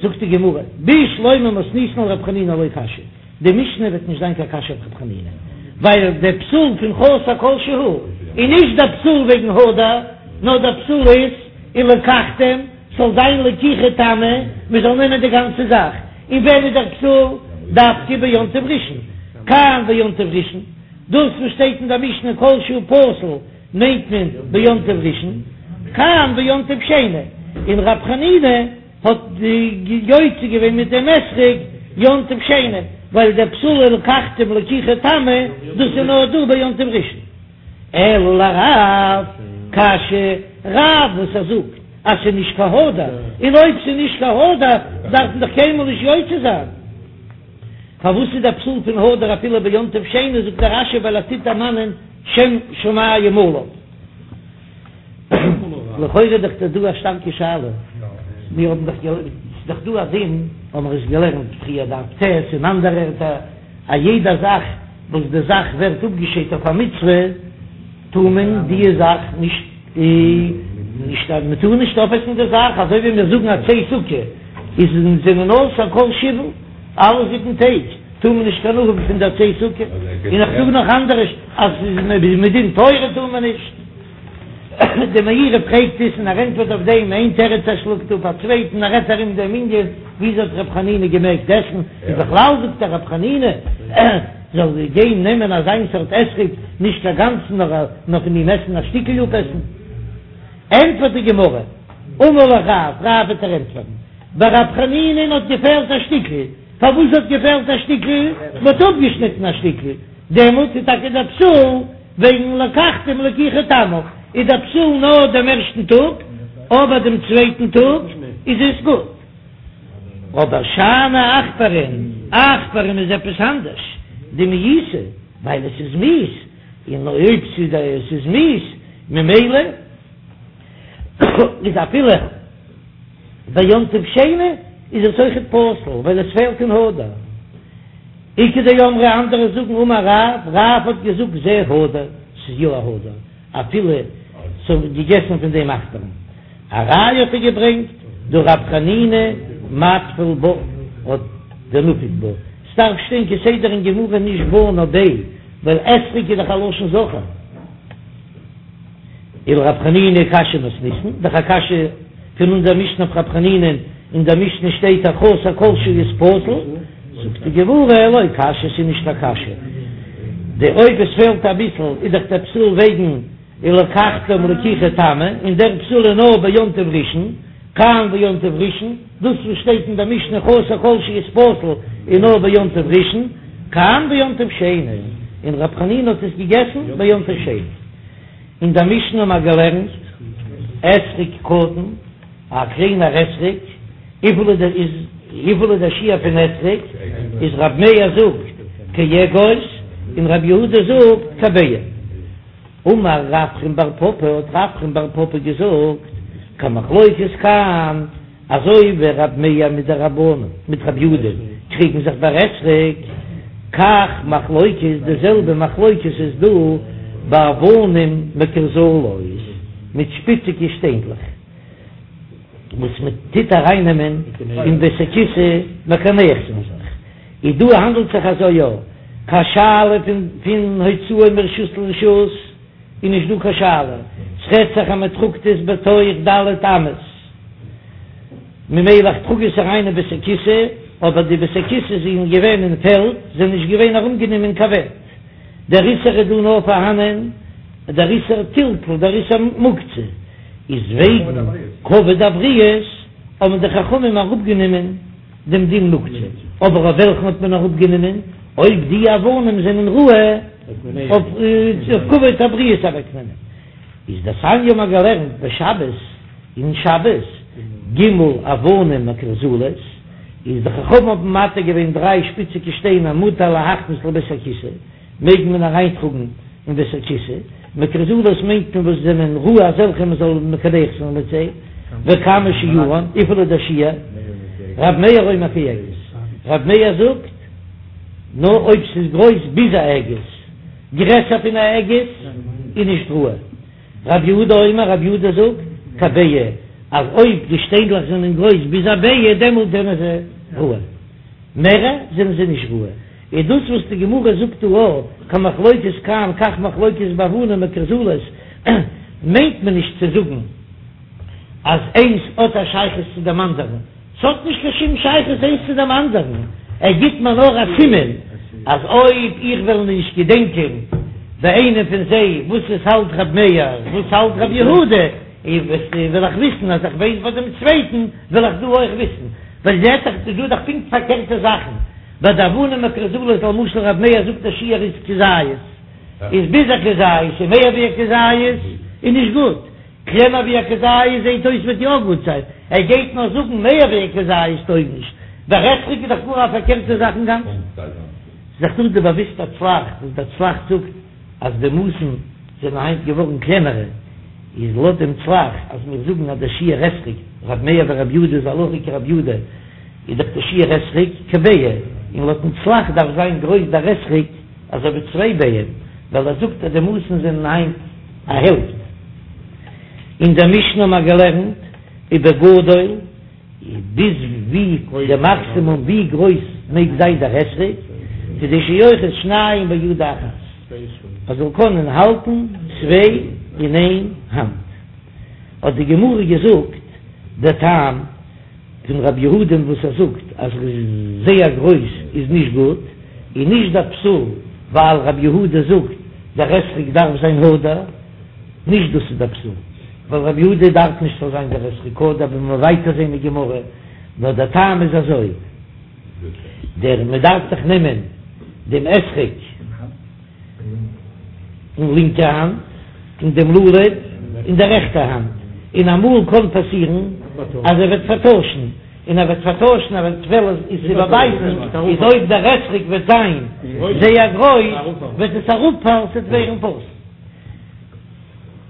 זאגט די גמרא, בשלמא מתניתין לרב חנינא לא קשיא, די משנה וועט נישט זיין קיין קשיא אויף רב חנינא, ווייל דער פסול פון חסר כל שהוא איז נישט דער פסול וועגן הדר, נאר דער פסול איז ולקחתם, ס'זאל זיין לקיחה תמה, מ'זאל נעמען די גאנצע זאך, און ווען איז דער פסול? דווקא ביום טוב ראשון, כאן ביום טוב ראשון, דאס וואס שטייט אין דער משנה כל שהוא פסול מיינט מען ביום טוב ראשון, כאן ביום טוב שני, און רב חנינא האט יוצא געווען מיט דעם אתרוג יום טוב שני, ווייל דער פסול ולקחתם לקיחה תמה, דאס איז נאר דא ביום טוב ראשון. אלא לרב קשיא, רב וואס ער זאגט אז ס'איז נישט קיין הדר, און אויב ס'איז נישט קיין הדר דארף מען דאך קיינמאל נישט יוצא זיין. פארוואס איז דער פסול פון הדר אפילו ביום טוב שני, זאגט דער רש"י ווייל ער טוט דערמאנען שם שמים עליו. לכאורה איז דאך דא א שטארקע שאלה, מיר האבן דאך געלערנט, ס'איז דאך דא א דין, האבן מיר עס געלערנט פריער דף ט' און אנדערע ערטער, א יעדע זאך וואס די זאך ווערט אפגעשיידט אויף א מצוה, טאר מען די זאך נישט נישט מען טאר נישט אויפעסן די זאך, אזוי ווי מיר זאגן עצי סוכה איז זענען אסור כל שבעה, אלע זיבן טעג טאר מען נישט קיין הנאה האבן פון די עצי סוכה, און איך זאג נאך אנדערש אז מדין תורה טאר מען נישט. די מאירי פרעגט עס און ער ענטפערט אויף דעם איין תירוץ ער שלאגט אפ א צווייטן ער רעדט ארום דעם ענין וויאזוי האט ר' חנינא געמעגט עסן און בכלל זאגט ער ר' חנינא זאל גיין נעמען אזיין סארט אתרוג נישט קיין גאנצן נאר נאר פון אים עסן א שטיקל אפעסן ענטפערט די גמרא אמר לך רב רב וועט ער ענטפערן ביי ר' חנינא'ן האט געפעלט א שטיקל פארוואס האט געפעלט א שטיקל מען האט אפגעשניטן א שטיקל דעמאלט איז טאקע דער פסול וועגן לקחתם לקיחה תמה איז דער פסול נאר דעם ערשטן טאג, אבער דעם צווייטן טאג איז עס גוט. אבער שאני עכברים, עכברים איז עפעס אנדערש, דמאיסי, ווייל עס איז מיאוס, און אויב עס איז מיאוס ממילא איז אפילו ביום טוב שני איז עס אויכעט פסול ווייל עס פעלט אין הדר. איכא דאמרי אנדערע זאגן אמר רב, רב האט געזאגט זה הדר, ס'איז יא א הדר, אפילו ס'האבן געגעסן פון דעם עכברים. א ראיה האט ער געברענגט דהא רב חנינא מטביל בה האט דנפיק בה, ס'דארף שטיין כסדר אין גמרא נישט בה נאר ביה, ווייל אתרוג איז דאך א לשון זכר. ולרב חנינא קשיא מתניתין, דאך א קשיא פון אונזער משנה אויף רב חנינא, אין דער משנה שטייט אז חסר כל שהוא איז פסול, זאגט די גמרא לא קשיא ס'איז נישט א קשיא, די אויב עס פעלט אביסל איז דאך דער פסול וועגן ולקחתם לקיחה תמה, און דער פסול איז נאר ביום טוב ראשון, כאן ביום טוב ראשון, דאס וואס שטייט אין דער משנה חסר כל שהוא איז פסול איז נאר ביום טוב ראשון, כאן ביום טוב שני, און רב חנינא האט עס געגעסן ביום טוב שני. אין דער משנה האבן מיר געלערנט אתרוג קטן, א קליינער אתרוג, וויפיל איז דער איז וויפיל איז דער שיעור פון אתרוג, איז רב מאיר זאגט כאגוז און רב יהודה זאגט כביעה. אמר רפרם בר פפא האט רפרם בר פפא געזאגט כמחלוקת כאן, אזוי ווי רב מאיר מיט די רבנן מיט רב יהודה קריגן זיך ביי אתרוג, כך מחלוקת די זעלבע מחלוקת איז דא באבנים מקורזלות מיט שפיציגע שטיינדלעך וואס מען טוט ארייננעמען אין בית הכסא מקנח זיין זיך, איז דא האנדלט זיך אזוי יא קיין שאלה פון פון הוצאה מרשות לרשות איז נישט דא קיין שאלה, ס'רעדט זיך אז מען טראגט עס בתוך ד' אמות, ממילא איך טראג עס אריין אין בית הכסא, אבער די בית הכסא זענען געווען אין פעלד, זענען נישט געווען ארומגענומען קיין ווענט, דער איסור איז דא נאר פארהאנען דער איסור טלטול, דער איסור מוקצה איז וועגן כבוד הבריות האבן די חכמים אראפגענומען. דעם דין מוקצה, אבער אויף וועלכן האט מען אראפגענומען? אויב די אבנים זענען ראוי אויף כבוד הבריות אוועקנעמען, איז דתניא האבן מיר געלערנט בשבת, אין שבת, ג' אבנים מקורזלות, איז די חכמים האבן מתיר געווען דריי שפיציגע שטיינער מותר להכניס לבית הכסא, מעג מען אריינטראגן אין בית הכסא, מקורזלות מיינט מען וואס זענען ראוי אזעלכע מען זאל מקנח זיין מיט זיי, וכמה שיעורן, וויפיל איז דער שיעור? רב מאיר אומר כאגוז, רב מאיר זאגט נאר אויב ס'איז גרויס ביז א אגוז. גרעסער פון א אגוז איז נישט ראוי. רב יהודה אומר, רב יהודה זאגט, כביצה, אז אויב די שטיינדלעך זענען גרויס ביז א ביצה דעמאלט זענען זיי ראוי, מערער זענען זיי נישט ראוי. איז דאס וואס די גמרא זאגט דא א כמחלוקת כאן כך מחלוקת באבנים מקורזלות, מיינט מען נישט צו זאגן אז איינס האט א שייכות צו דעם אנדערן, ס'האט נישט קיין שום שייכות איינס צו דעם אנדערן, ער גיט מיר נאר א סימן אז אויב איך וועל נישט געדענקען ביי איינעם פון זיי וואס עס האלט ר' מאיר וואס האלט ר' יהודה, וועל איך וויסן אז איך ווייס ביי דעם צווייטן וועל איך דא אויך וויסן, ווייל זעט זיך ס'איז דא דאך פונקט פארקערטע זאכן, ביי די אבנים מקורזלות למשל ר' מאיר זאגט א שיעור איז כזית, איז ביז א כזית און מער ווי א כזית איז נישט גוט. קלענער ווי א כזית זעהט אויס וועט יא גוט זיין, ער גייט נאר זאגן מער ווי א כזית טויג נישט, ביי אתרוג איז דאך גאר א פארקערטע זאך אינגאנצן. ס'איז דאך דא די באוויסטע צל"ח וואס דער צל"ח זאגט אז די מאסן זענען היינט געווארן קלענערע, איז לויט דעם צל"ח אז מיר זאגן אז דער שיעור אתרוג, ר' מאיר ור' יהודה איז הלכה כר' יהודה, איז דאך דער שיעור אתרוג כביצה, און לויטן צל"ח דארף זיין גרויס דער אתרוג אזוי ווי צוויי ביעים, ווייל ער זאגט אז די מאסן זענען היינט א העלפט. אין דער משנה האבן מיר געלערנט ובגדול, ביז ווי די מאקסימום ווי גרויס מעג זיין דער אתרוג, כדי שיאחז שניים ביד אחת, ער זאל קענען האלטן צוויי אין איין האנט. האט די גמרא געזאגט דער טעם פון רב יהודה'ן וואס ער זאגט אז זייער גרויס איז נישט גוט, איז נישט דער פסול ווייל רב יהודה זאגט דער אתרוג דארף זיין הדר, נישט דאס איז דער פסול, ווייל רב יהודה דארף נישט ס'זאל זיין דער אתרוג הדר, ווי מ'וועט ווייטער זען אין גמרא, נאר דער טעם איז אזוי, דער מ'דארף דאך נעמען דעם אתרוג. אין לינקע האנט און דעם לולב אין דער רעכטער האנט, און אמאל קען פאסירן אז ער וועט פארטוישן, און ער וועט פארטוישן ער וועט וועלן עס איבערבייטן, איז אויב דער אתרוג וועט זיין זייער גרויס וועט עס אראפפאלן, ס'וועט ווערן פסול.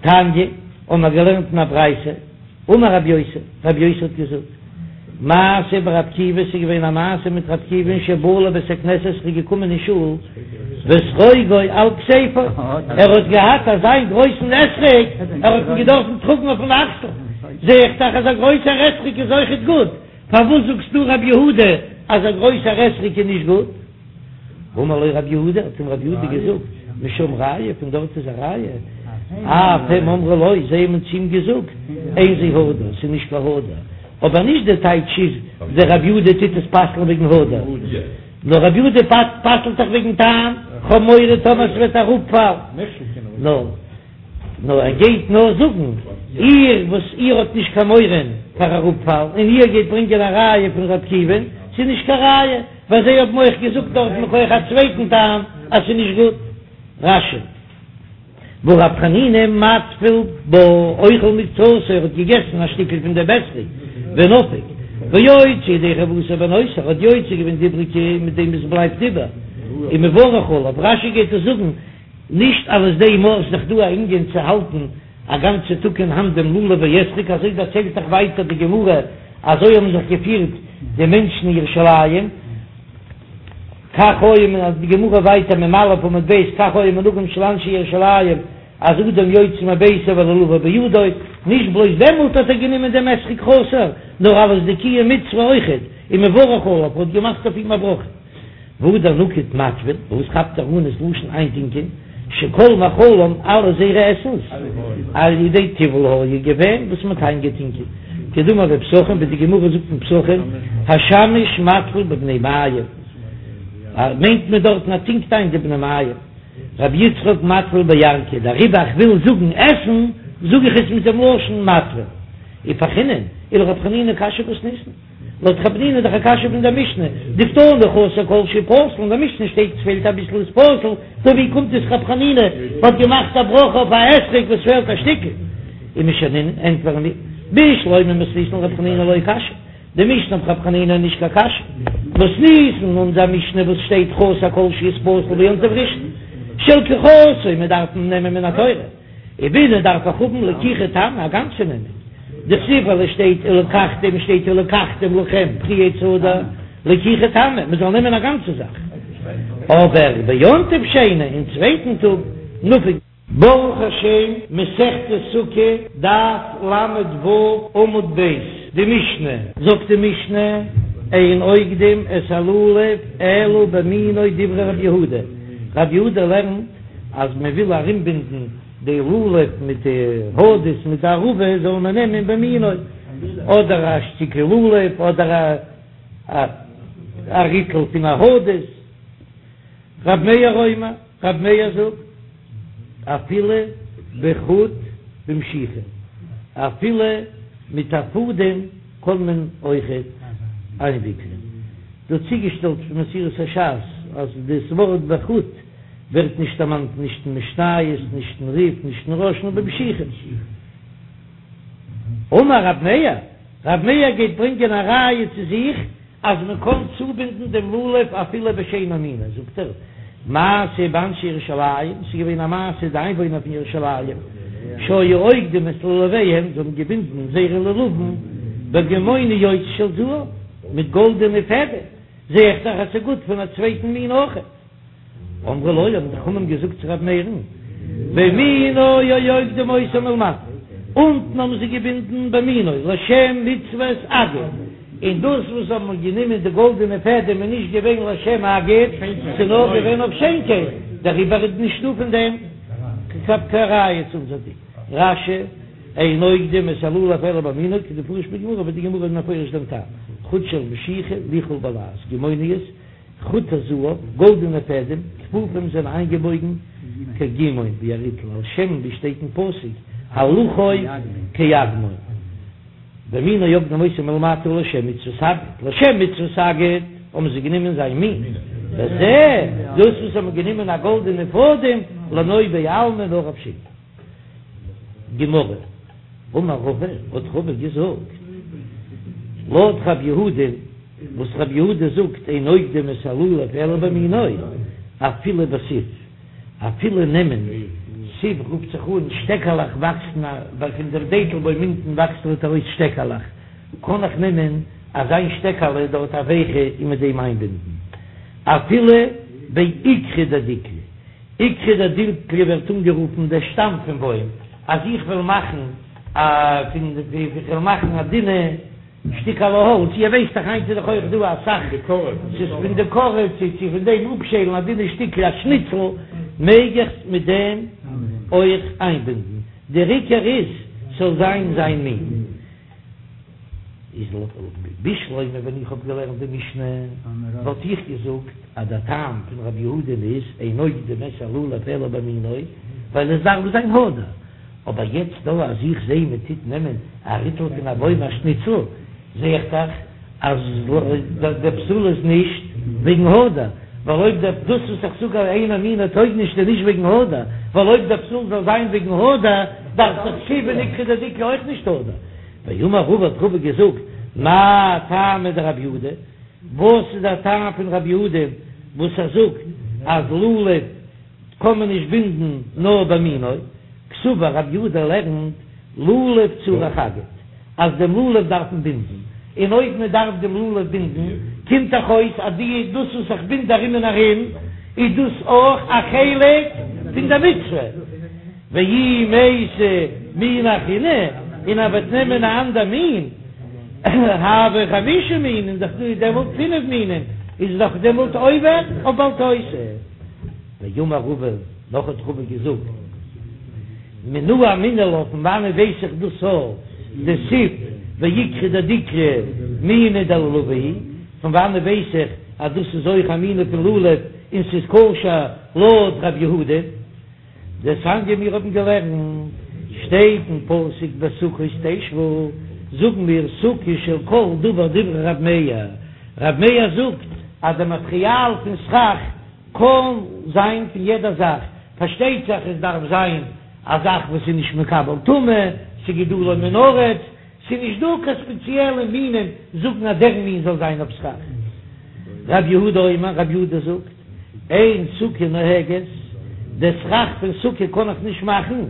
תניא, האבן מיר געלערנט אין א ברייתא. אמר רבי יוסי, רבי יוסי האט געזאגט, מעשה ברבי עקיבא, ס'איז געווען א מעשה מיט רבי עקיבא'ן שבא לבית הכנסת, ער איז געקומען אין שול, ואתרוגו על כתפו, ער האט געהאט אזיין גרויסן אתרוג, ער האט אים געדארפן טראגן אויפן אקסל, זע איך דאך אז א גרויסער אתרוג איז אויכעט גוט, פארוואס זאגסטו רבי יהודה אז א גרויסער אתרוג איז נישט גוט? אמר לו רב יהודה, האט אים רב יהודה געזאגט, משם ראיה, פון דארט איז א ראיה, אף הם אמרו לו, זיי האבן צו אים געזאגט, אין זה הדר, ס'איז נישט קיין הדר, אבער נישט די טייטש איז דער רב יהודה טוט עס פסל'ן וועגן הדר, נאר רב יהודה פסל'ט דאך וועגן טעם, כ'האב מורא טאמער ס'וועט אראפפאלן, נאר. נאר ער גייט נאר זאגן, איר וואס איר האט נישט קיין מורא פאר אראפפאלן, און איר גייט ברענגען א ראיה פון ר' עקיבא'ן, ס'איז נישט קיין ראיה, ווייל זיי האבן אויך געזאגט דארט מכח א צווייטן טעם אז ס'איז נישט גוט. רש"י, והא רב חנינא מטביל בה אוכל מקצתו, ער האט געגעסן א שטיקל פון דעם אתרוג, ונפיק, ויוצא ידי חובתו בנותר, ער האט יוצא געווען די איבריגע מיט דעם וואס בלייבט איבער, ומברך עליו, רש"י גייט עס זאגן, נישט אלס דעם אויך איז דאך דא א ענין צו האלטן א גאנצע טאג אין האנט דעם לולב ואתרוג, אזוי דערציילט דאך ווייטער די גמרא, אזוי האבן זיך געפירט די מענטשן אין ירושלים, כך היה מן די גמרא ווייטער מ"א עמוד ב', כך היה מנהגם של אנשי ירושלים, אז אדם יוצא מביתו ולולבו בידו, נישט בלויז דעמאלט האט ער גענומען דעם אתרוג חסר, נאר אלס די קיום מצוה אויכעט, ומברך עליו, האט געמאכט אויף אים א ברכה. והדר נקיט מטביל, וואס כאפט ער אן ס'לשון איינטינקען, שכל מאכלם אלע זייערע עסנס על ידי טיבול היה געווען וואס מ'האט איינגעטינקען, כדאמר בפסחים ווי די גמרא זאגט אין פסחים השמש מטביל בבני מעים, מיינט מען דארטן ער טינקט איין די בני מעים, רבי יצחק מטביל בירקא, דעריבער איך וויל זאגן עסן זאג איך עס מיט דעם לשון מטביל, ופרכינן, ולרב חנינא קשיא מתניתין. לויט רב חנינא איז דאך א קשיא פון דער משנה, דקתני חסר כל שהוא פסול, אין דער משנה שטייט עס פעלט אביסל איז פסול, טא ווי קומט עס רב חנינא האט געמאכט א ברכה אויף א אתרוג וואס פעלט א שטיקל? ומשנינן ענטפערן מיר, בשלמא מתניתין לרב חנינא לא קשיא, די משנה אויף רב חנינא איז נישט קיין קשיא, מתניתין אונזער משנה וואס שטייט חסר כל שהוא איז פסול ביום טוב ראשון שלקיחתו מען דארף נעמען מן התורה. ובעינא דארף איך האבן לקיחה תמה א גאנצע נעמען, דכתיב ווייל עס שטייט ולקחתם שטייט ולקחתם לכם פרי עץ הדר, לקיחה תמה מען זאל נעמען א גאנצע זאך. אבער ביום טוב שני, אין צווייטן טאג, נפיק. ברוך השם, מסכת סוכה, דף ל"ו, עמוד ב', די משנה, זאגט די משנה, אין אוגדים את הלולב אלא במינו דברי רבי יהודה, רבי יהודה לערנט אז מען וויל ארומבינדן די לולב מיט די הדס מיט די ערבה זאל מען נעמען במינו, אדער א שטיקל לולב אדער א ריטל פון א הדס. רב מאיר אומר, רב מאיר זאגט, אפילו בחוט במשיחה, אפילו מיט א פאדעם קען מען אויכעט איינוויקלען. דא צוגעשטעלט פון מסורת הש"ס אז דאס ווארט בחוט ווערט נישט דערמאנט נישט אין משניות, נישט אין רי"ף, נישט אין רא"ש, נאר במשיחה. אמר רב מאיר, רב מאיר גייט ברענגען א ראיה צו זיך אז מען קען צובינדן דעם לולב אפילו בשאינו מינו, זאגט ער, מעשה באנשי ירושלים, ס'איז געווען א מעשה די איינוואוינער פון ירושלים, שהיו אוגדים את לולביהם, זיי האבן געבינדן זייערע לולבים בגמוניות של זהב, מיט גאלדענע פעדעם, זע איך דאך אז ס'איז גוט פון א צווייטן מין אויכעט. אמרו לו, האבן די חכמים געזאגט צו רבי מאיר'ן, במינו היו אוגדים אותו מלמטה, אונטן האבן זיי געבינדן במינו לשם מצוות אגד, און דאס וואס האבן גענומען די גאלדענע פעדעם איז נישט געווען לשם אגד, ס'איז נאר געווען אויף שיינקייט, דעריבער איז נישטא פון דעם קיין ראיה צו אונזער דין. רש"י, אין אוגדים את הלולב אלא במינו, כדמפרש בגמרא, ווי די גמרא איז מפרש דעם טעם, חוט של משיחה ליכול בלעז, גמוניות, חוטי זהב, גאלדענע פעדעם, כפופים זענען איינגעבויגן כגימון ווי א ריטל, על שם ווי שטייט אין פסוק הלכו כאגמון, במינו היו אוגדים אותו מלמטה לשם מצוות אגד, לשם מצוות אגד האבן זיי גענומען זיין מין, וזה דאס וואס האבן גענומען א גאלדענע פאדעם לנוי בעלמא נאר אויף שיינקייט. גמרא, אמר רבא, האט רבא געזאגט, לויט רב יהודה, וואס רב יהודה זאגט אין אוגדים את הלולב אלא במינו, אפילו בסיב, אפילו נעמען סיב רופט זיך אן שטעקעלעך וואקסן ווייל פון דעם דעטל בוים אונטן וואקסט דארט ארויס שטעקעלעך, קען איך נעמען אזיין שטעקעלע דארט א ווייכע און מיט דעם איינבינדן אפילו בעיקרא דדיקלא. עיקרא דדיקלא ווערט אנגערופן דער שטאם פון בוים, אז איך וועל מאכן א פון די איך וועל מאכן א דינע שטיקעלע האלץ, איר ווייסט דאך היינט איז דאך אויך דא אסאך, ס'איז פון די קארע צו צו פון דעם אפשיילן א דינע שטיקל א שניצל, מעג איך מיט דעם אויך איינבינדן, דער עיקר איז ס'זאל זיין זיין מין. איז בשלמא ווען איך האב געלערנט די משנה וואלט איך געזאגט אז דער טעם פון רבי יהודה'ן איז אין אוגדין את הלולב אלא במינו ווייל עס דארף זיין הדר, אבער יעצט דא אז איך זעה מען טוט נעמען א ריטל פון א בוים א שניצל זעה איך דאך אז דער פסול איז נישט וועגן הדר, ווייל אויב דער דאס וואס איך זאג אז אינו מינו טויג נישט איז נישט וועגן הדר, ווייל אויב דער פסול זאל זיין וועגן הדר דארף דאך סיב און עיקרא דדיקלא אויך נישט הדר. ואמר רבא האט רבא געזאגט, מאי טעמא דרב יהודה, וואס איז דער טעם פון רב יהודה וואס ער זאגט אז לולב קען מען נישט בינדן נאר במינו, קסבר רב יהודה לערנט לולב צריך אגד, אז דעם לולב דארף מען בינדן, און אויב מען דארף דעם לולב בינדן, קומט דאך אויס אז די דאס וואס איך בינד ארום און ארום איז דאס אויך א חלק פון דער מצוה. ואי מייתי מינא אחרינא, און ער וועט נעמען א אנדער מין, הוו חמשה מינים, דאך דא דעמאלט פינף מינים, איז דאך דעמאלט עובר אויף בל תוסיף. ואמר רבא, נאך האט רבא געזאגט, מנא אמינא לה, פון וואנעט ווייס איך דאס א דסיב ועיקרא דדיקלא מינא דלולבא הוא, פון וואנעט ווייס איך אז דאס איז אויך א מין פון לולב און ס'איז כשר לויט רב יהודה? דתניא מיר האבן געלערנט, שטייט אין פסוק בסוכות תשבו, זאגן מיר סוכה של כל דבר דברי רב מאיר, רב מאיר זאגט אז די מאטריאל פון סכך קען זיין פון יעדע זאך, פארשטייט זיך עס דארף זיין א זאך וואס איז נישט מקבל טומאה, ס'גידולו מן הארץ, ס'איז נישט דא קיין ספעציעלע מינים זאגן אז דער מין זאל זיין אויף סכך. רב יהודה אומר, רב יהודה זאגט, אין סוכה נוהגת, די סכך פון סוכה קען איך נישט מאכן,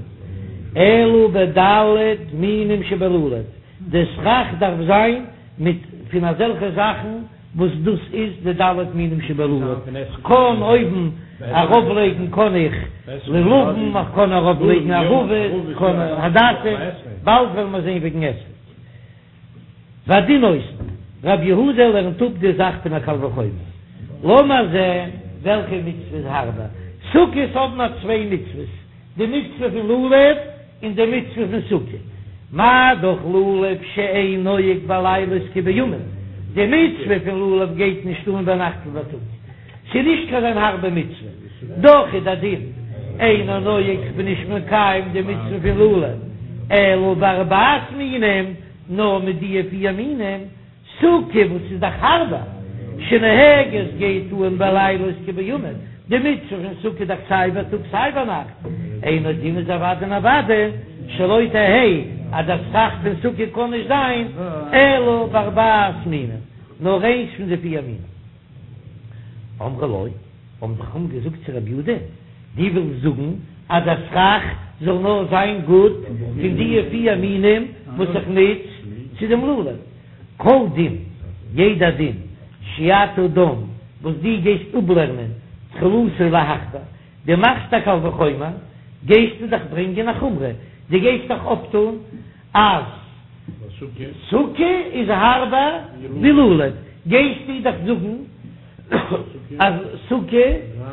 אלא בד' מינים שבלולב, די סכך דארף זיין מיט פון אזעלכע זאכן. וואס דאס איז די ד' מינים שבלולב, כ'קען אויבן ארויף לייגן קען איך לולבים, איך קען ארויף לייגן ערבות, כ'קען הדסים, באלד וועלן מיר זען וועגן אתרוג. והדין עושין, רב יהודה לערנט אפ די זאך פון א קל וחומר. לאמיר זען וועלכע מצוה איז הארבער. סוכות האבן מיר צוויי מצוות, די מצוה פון לולב און די מצוה פון סוכה. מה דאך לולב שאין נוהג בלילות כבימים, די מצוה פון לולב גייט נישט אן ביינאכט ווי בייטאג, ס'איז נישט קיין אזוין הארבע מצוה, דאך איז דער דין אינו נוהג כ'בין נישט מקיים די מצוה פון לולב אלא בארבעת מינים, נאר מיט די פיר מינים, סוכה וואס איז דאך הארבער, שנוהגת גייט אן בלילות כבימים, די מצוה פון סוכה איז דאך סיי בייטאג סיי ביינאכט, אינו דין איז אוודאי און אוודאי שלא תהא אז דער סכך פון סוכה קען נישט זיין אלא בארבעת מינים, נאר איינס פון די פיר מינים. אמרו לו, האבן די חכמים געזאגט צו רבי יהודה, דו ווילסט זאגן אז דער סכך זאל נאר זיין גוט פון די פיר מינים וואס איך נוץ צו דעם לולב? כל דין, יעדע דין, שאתה דן, וואס דו גייסט אפלערנען תחילתו להחמיר, דו מאכסט א קל וחומר, גייסטו דאך ברענגען א חומרא, דו גייסט דאך אפטון אז סוכה איז הארבער ווי לולב, גייסטו דאך זאגן אז סוכה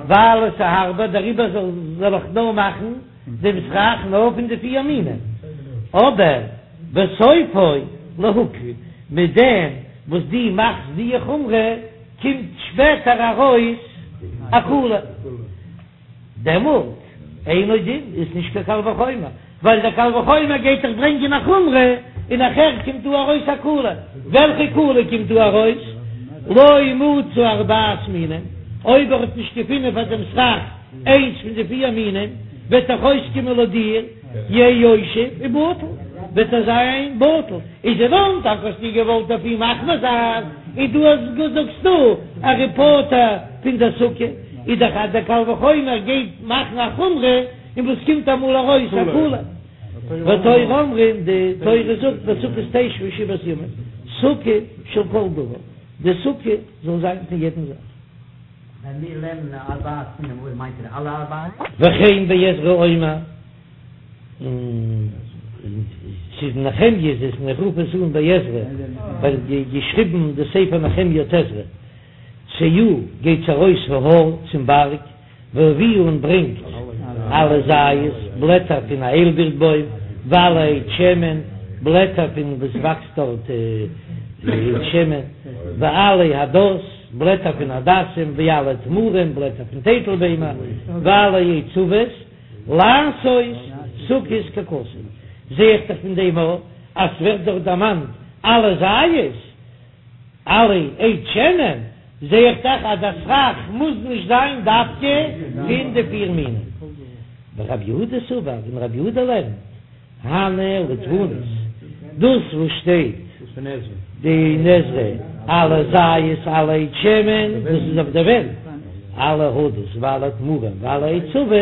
ווייל עס איז הארבער דעריבער זאל איך נאר מאכן דעם סכך נאר פון די פיר מינים, אבער וסופו להקל, מיט דעם וואס דו מאכסט די חומרא קומט שפעטער ארויס א קולא. דעמאלט אינו דין איז נישט קיין קל וחומר, ווייל דער קל וחומר גייט דאך ברענגען א חומרא, און נאכער קומט דא ארויס א קולא. וועלכע קולא קומט דא ארויס? לא מצא ארבעת מינים, אויב ער האט נישט געפונען פאר דעם סכך איינס פון די פיר מינים, וועט דאך אויסקומען לויט דיר יהא יושב ובטל, וועט ער זיין בטל. איז אין אנפאנג האסטו געוואלט אויף אים מחמיר זיין, און דא זאגסטו אז ער איז פטור פון דער סוכה. איז דאך אז דער קל וחומר גייט מאכן א חומרא, און וואס קומט אמאל ארויס א קולא. והתורה אמרה, די תורה זאגט בסוכות תשבו שבעת ימים, סוכה של כל דבר, די סוכה זאל זיין פון יעדן זאך. ווען מיר לערנען ארבעת מינים אויב מיינט ער אלע ארבעה? וכן בעזרא אומר, און ס'איז נחמיה איז עס און איך רוף עס אן בעזרא ווייל געשריבן די ספר נחמיה האט עזרא. צאו, גייטס ארויס ההר צום בארג, והביאו און ברענגט עלי זית, בלעטער פון א איילבירט בוים, ועלי עץ שמן, בלעטער פון וואס וואקסט דארט עץ שמן, ועלי הדס, בלעטער פון הדסים, ועלי תמרים, בלעטער פון טייטל ביימער, ועלי עץ עבות, לעשות סוכות ככתוב. זע איך דאך פון דעם א אז ס'ווערט דארט דערמאנט עלי זית. עלי עץ שמן, זע איך דאך אז דער סכך מוז נישט זיין דווקא פון די פיר מינים. ורב יהודה סבר, און רב יהודה לערנט, הני לדפנות, דאס וואס שטייט די אין עזרא עלי זית עלי עץ שמן, דאס איז אויף די ווענט, עלי הדס ועלי תמרים ועלי עץ עבות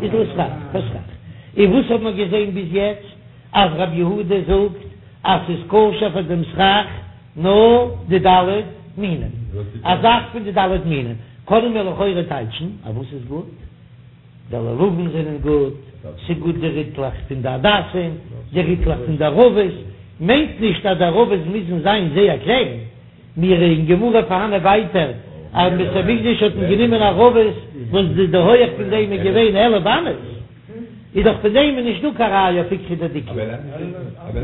איז לסכך, פאר סכך. און וואס האט מען געזען ביז יעצט? אז רב יהודה זאגט אז ס'איז כשר פאר דעם סכך נאר די ד' מינים, א זאך פון די ד' מינים, קענען מיר לכאורה טייטשן אז וואס איז גוט? די לולבים זענען גוט, ס'איז גוט די ריטלעך פון די הדסים, די ריטלעך פון די ערבות, מיינט נישט אז די ערבות מוזן זיין זייער קליין, מיר אין גמרא פארהאנען ווייטער אז אין בית המקדש האט מען גענומען ערבות וואס די הויעך פון דעם איז געווען 11 אמות, איז דאך פון דעם איז נישט דא קיין ראיה אויף איקרי דדיקלא.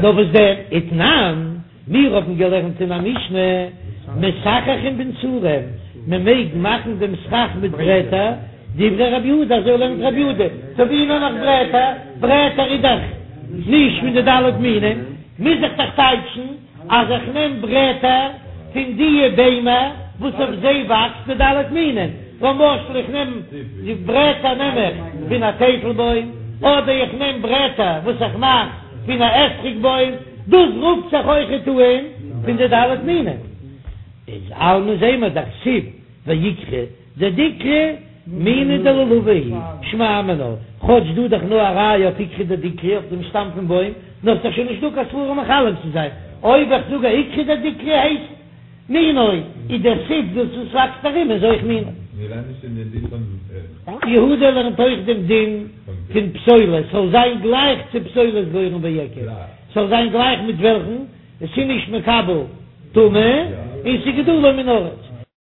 נאר וואס דען? ותנן, מיר האבן געלערנט אין א משנה, מסככין בנסרים, מען מעג מאכן דעם סכך מיט ברעטער, דברי רבי יהודה, אזוי לערנט רבי יהודה, טא ווי נעם איך ברעטער? ברעטער איז דאך נישט פון די ד' מינים, מוז איך דאך טייטשן אז איך נעם ברעטער פון דיע ביימער וואס אויף זיי וואקסט די ד' מינים, למשל איך נעם די ברעטער נעם איך פון א טייטל בוים, אדער איך נעם ברעטער וואס איך מאך פון א אתרוג בוים, דאס רופט זיך אויכעט אן פון די ד' מינים. איז אלמא זעמער דכתיב ועיקרא דדיקלא מיני דלולבא הוא שמע מינה, כאטש דא דאך נאר א ראיה אויף עיקרא דדיקלא אויף דעם שטאם פון בוים, נאר ס'דאך שוין נישט דא קיין סברא מחלק צו זיין, אויב איך זאג אז עיקרא דדיקלא הייסט. מינו, איז דער סיב דאס וואס וואקסט ארום איז אויך מינו. יהודה לערנט אויך דעם דין פון פסולת, ס'זאל זיין גלייך צו פסולת גורן ויקב, ס'זאל זיין גלייך מיט וועלכן עס איז נישט מקבל טומאה און ס'איז גידולו מן הארץ.